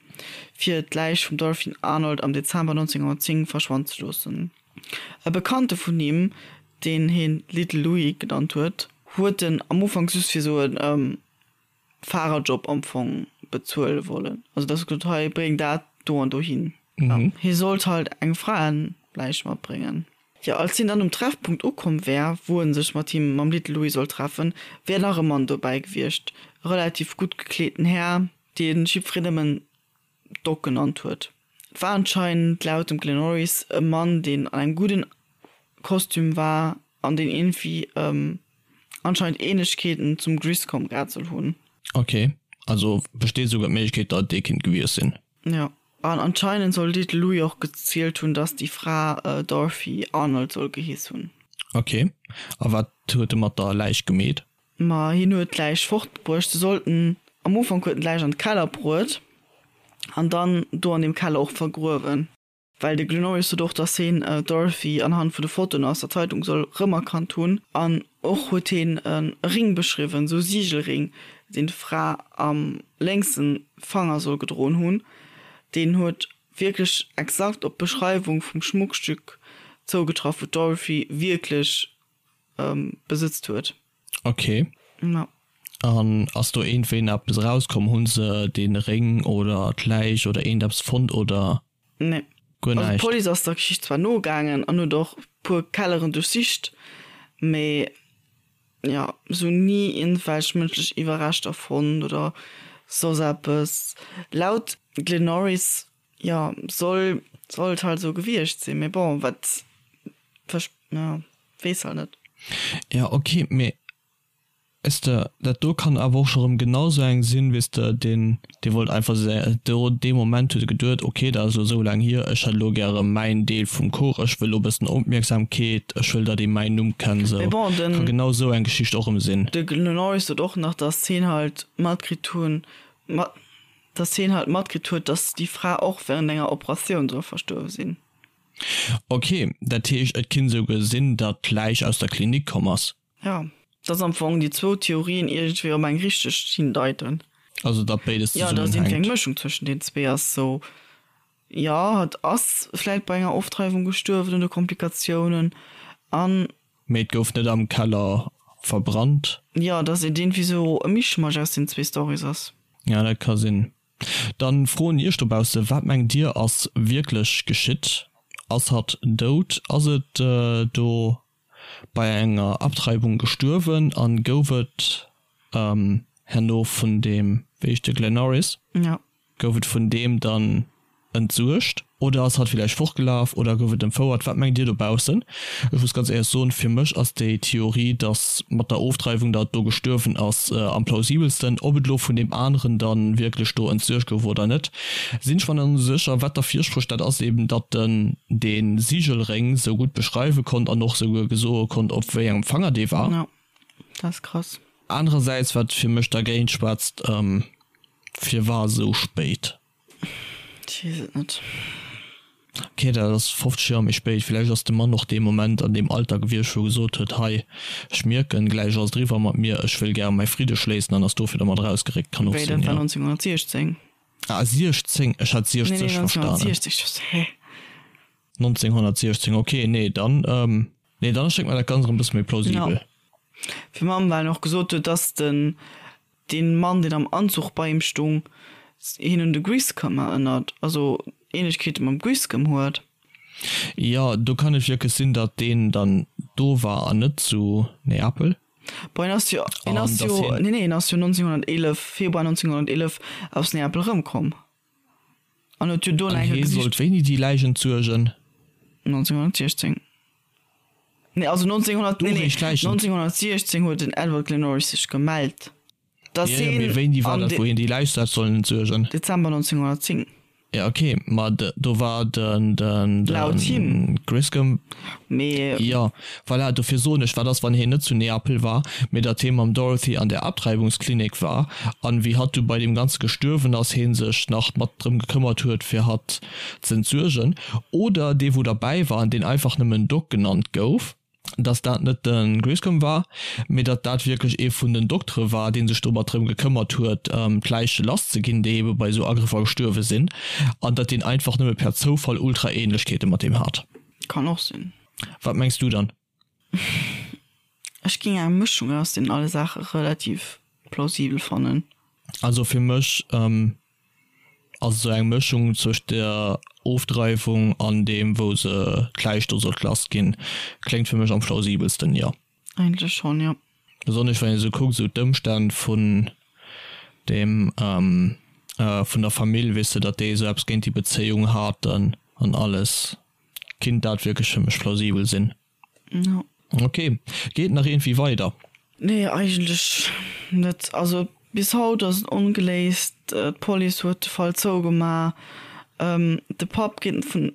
fir d'Läich vum Dorothy Arnold am Dezember 1910 verschwannen ze loossen. E Bekannte vun him, deen hien Little Louis genannt huet, huet en am Ufank just fir sou e Fahrerjob am Fong bezuele wollen. Also dass e gesot huet, hei bréng dat do an dohin. Hie sollt halt eng Fraeläich matbréngen. Jo, als hien dann um Treffpunkt ukomm wär, wou en sech mat him, mam Little Louis sollt treffen, wär nach e Mann dobäi gewiescht, e relativ gutt gekleeten Här, dee jiddwereen nëmmen Doc genannt huet. Et war anscheinend laut dem Glenn Norris e Mann, deen an engem gudden Kostüm war an deen iergendwéi anscheinend Ähnlechkeeten zum Griscom gehat soll hunn. Ok, also besteet esouguer d'Méiglechkeet, datt et dee kinnt gewiescht sinn. Jo, an anscheinend soll Little Louis och gezielt hunn, datt déi Fra Dorothy Arnold soll geheess hunn. Ok, a wat huet e mat der Läich gemeet? Ma hien huet d'Läich fortbruecht. Se sollten, am Ufank huet en d'Läich an de Keller bruet an dann do an deem Keller och vergruewen. Well de Glenn Norris sot och, datt hien d'Dorothy anhand vun de Fotoen aus der Zeitung soll rëmerkannt hunn. An och huet hien e Ring beschriwwen, esou e Sigelring, deen d'Fra am lénkse Fanger soll gedroen hunn. Deen huet wierklech exakt op d'Beschreiwung vum Schmuckstück zougetraff, wou d'Dorothy wierklech besëtzt huet. Ok. Ja. An ass do iergendwéi nach eppes erauskomm? Hu se dee Réng oder d'Läich oder iergendeppes fonnt oder Nee. guer Also näischt? d'Police ass der Geschicht zwar nogaangen an huet och puer Kelleren duerchsicht, mee jo, se hunn ni iergendwelch mënschlech Iwwerreschter fonnt oder soss eppes. Laut Glenn Norris, jo, soll soll et halt esou gewiescht sinn, mee bon, wat ja, weess halt net. Ja, ok, mee. Weess de, dat do kann awer och scho rëm genau sou eng sinn, weess de, deen, dee wollt einfach do dee Moment huet e geduet, ok, dat ass elo sou laang hier, ech hätt elo gäre mäin Deel vum Kuch, ech wëll elo e bëssen Opmierksamkeet, ech wëll, datt ee mäin Numm kennt, sou. Mee bon, den. Ka genau sou eng Geschicht och rëm sinn. De Norris sot och nach, datt hien halt matkritt hunn, mat, datt hien halt matkritt huet, datt déi Fra och während enger Operatioun soll verstuerwe sinn. Ok, dat heescht, et kinnt esouguer sinn, datt d'Läich aus der Klinik komm ass. Jo, dass am Fong déi zwou Theorien iergendwéi op eng richteg hindeiten. Also datt béides Jo, dass iergendwéi eng Mëschung zwëschen den zwee ass. Sou, jo, hatt ass vläit bei enger Ofdreiwung gestuerwen oder Komplikatiounen an. Mee et gouf net am Keller verbrannt. Jo, dass et iergendwéi sou e Mischmasch aus den zwee Storys ass. Ja, dat ka sinn. Dann froen iech dobausse, wat mengt dir ass wierklech geschitt? Ass hatt dout? Ass et do bei enger Abtreibung gestuerwen an gouf et herno vun deem, wéi heescht de, Glenn Norris, gouf et vun deem dann entsuergt oder ass hatt villäicht fortgelaf oder gouf et entfouert? Wat mengt dir dobaussen? Ech muss ganz éierlech soen, fir mech ass déi Theorie, dass mat der Ofdreiwung datt do gestuerwen ass, am plausibelsten. Ob et elo vun deem aneren dann wierklech do entsuergt gouf oder net, Sinn ech mer net esou sécher. Wat derfir sprécht, dat ass eben, datt en dee Sigelréng sou gutt beschreiwe konnt an och souguer gesoe konnt, op wéi engem Fanger dee war. Jo, dat ass krass. Anerersäits, wat fir mech dergéint schwätzt, firwar esou spéit? Ech weess et net. Ok, dat ass 50 Joer méi spéit. Villäicht ass de Mann och dee Moment an deem Alter gewiescht, wou e gesot huet, hei, ech mierken, gläich ass et eriwwer mat mir, ech wëll gäre mäi Fridde schléissen an ass dofir dermat erausgeréckt. Kann och Wéi, sinn, dat war jo. 1916? Ah, 16, ech hat Nee, nee, 60 verstanen. 1960, ech so, hä? 1916, ok, nee, dann, nee, dann erschéngt mer dat Ganzt erëm e bësse méi Jo. plausibel. Fir Mamm, well en och gesot huet, dass den Deen Mann, deen am Anzuch bei him stung, hien un de Griscom erënnert, also Ähnlechkeete mam Griscom huet. Jo, do kann et wierklech sinn, datt deen dann do war an net zu Neapel. Bon, hien ass jo, hien ass jo, nee, nee, hien ass jo 1911, Februar 1911 aus Neapel erëmkomm an huet jo do nach eng Kéier gesicht. An hie sollt wéini déi Läich entsuergen? 1916. Nee, also 1900, nee, nee, 1916 huet den Edward Glennorris sech gemellt, dass hien. Jo, jo, mee wéini war dat, wou hien déi Läich hat sollen entsuergen? Dezember 1910. Jo, ok, ma do war den, den, Laut him. Griscom. Mee. Jo, voilà, dofir soen ech, wat ass, wann hien net zu Neapel war, mee datt hie mam Dorothy an der Abtreibungsklinik war, an wéi hatt du bei deem Ganze gestuerwen ass, hie sech nach mat drëm gekëmmert huet, fir hatt ze entsuergen, oder dee wou derbäi war an deen einfach nëmmen Doc genannt gouf, dass dat net de Griscom war, mee datt dat wierklech ee vun den Doktere war, dee sech domat drëm gekëmmert huet, d'Läiche lass ze ginn, déi ebe bei esou Agrëffer gestuerwe sinn, an datt deen einfach nëmme per Zoufall ultra Ähnlechkeete mat deem hat. Kann och sinn. Wat mengs du dann? Ech géing eng Mëschung aus deenen alle Saache relativ plausibel fannen. Also fir mech Ass esou eng Mëschung zwëscht der Ofdreiwung an deem wou se d'Läich do sollt lass ginn, kléngt fir mech am plausibelsten, jo. Eigentlech schonn, jo. Besonnesch wann een esou kuckt, esou d'Ëmstänn vun deem, vun der Famill, weess de, datt déi esou eppes géint déi Bezéiung haten an alles, kinnt dat wierklech fir mech plausibel sinn. Jo. Ok, geet nach iergendwéi weider? Nee, eigentlech net. Also bis haut ass et ongeléist. D'Police huet de Fall zougemaach. De Papp geet vun,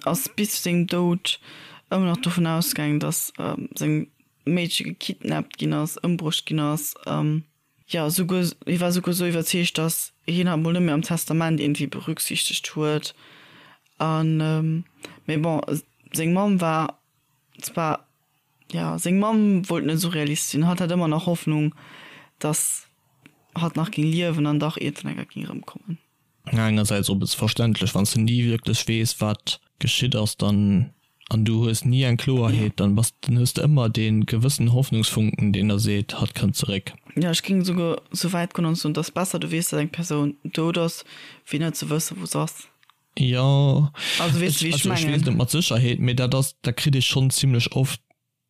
ass bis zu sengem Doud ëmmer nach dovun ausgaangen, datt seng Meedche gekidnappt ginn ass, ëmbruecht ginn ass. Jo, souguer, hie war souguer esou iwwerzeegt, datt hien hatt mol net méi am Testament iergendwéi berücksichtegt huet. An, mee bon, seng Mamm war zwar, jo, seng Mamm wollt net esou realist sinn, hatt hat ëmmer nach Hoffnung, datt hatt nach géing liewen an dach iergendwann eng Kéier géing erëmkommen. Engersäits och e bësse verständlech, wann s de ni wierklech weess, wat geschitt ass, dann, an du hues ni eng Kloerheet, dann bass, dann hues de ëmmer dee gewëssen Hoffnungsfunken, deen der seet, hatt kënnt zeréck. Jo, ech géing esouguer esou wäit goen an soen, et ass besser, du weess, datt eng Persoun dout ass, wéi net ze wëssen, wou se ass. Jo, Also weess de, wéi ech also ech weess mengen? net mat Sécherheet, mee dat ass, dat kritt ee schonn zimlech oft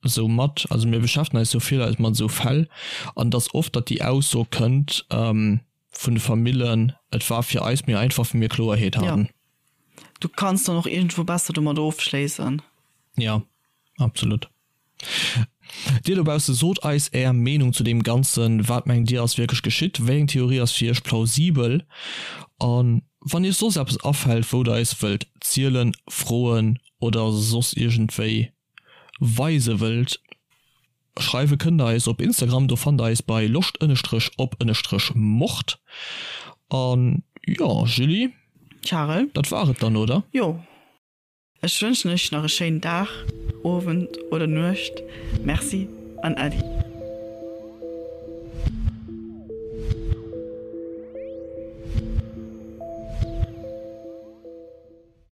esou mat, also mir beschäftegen eis jo vill eis mat esou Fäll, an et ass oft, datt déi Ausso kënnt vun de Famillen, et war fir eis méi einfach, wéi mir Kloerheet haten. Jo, du kanns dann och iergendwou besser domat ofschléissen. Jo, absolut. Dir dobausse sot eis är Meenung zu deem Ganzen. Wat mengt dir ass wierklech geschitt? Wéi eng Theorie ass fir iech plausibel? A wann iech soss eppes afält wou der eis wëllt zielen, froen oder soss iergendwéi weise wëllt, schreiwe kënnt der eis op Instagram, do fannt der eis bei loscht ënnestrech op ënnestrech mord. An jo Julie, Charel, dat war et dann, oder? Jo. Ech wënschen iech nach e schéinen Dag, Owend oder Nuecht. Merci an Äddi.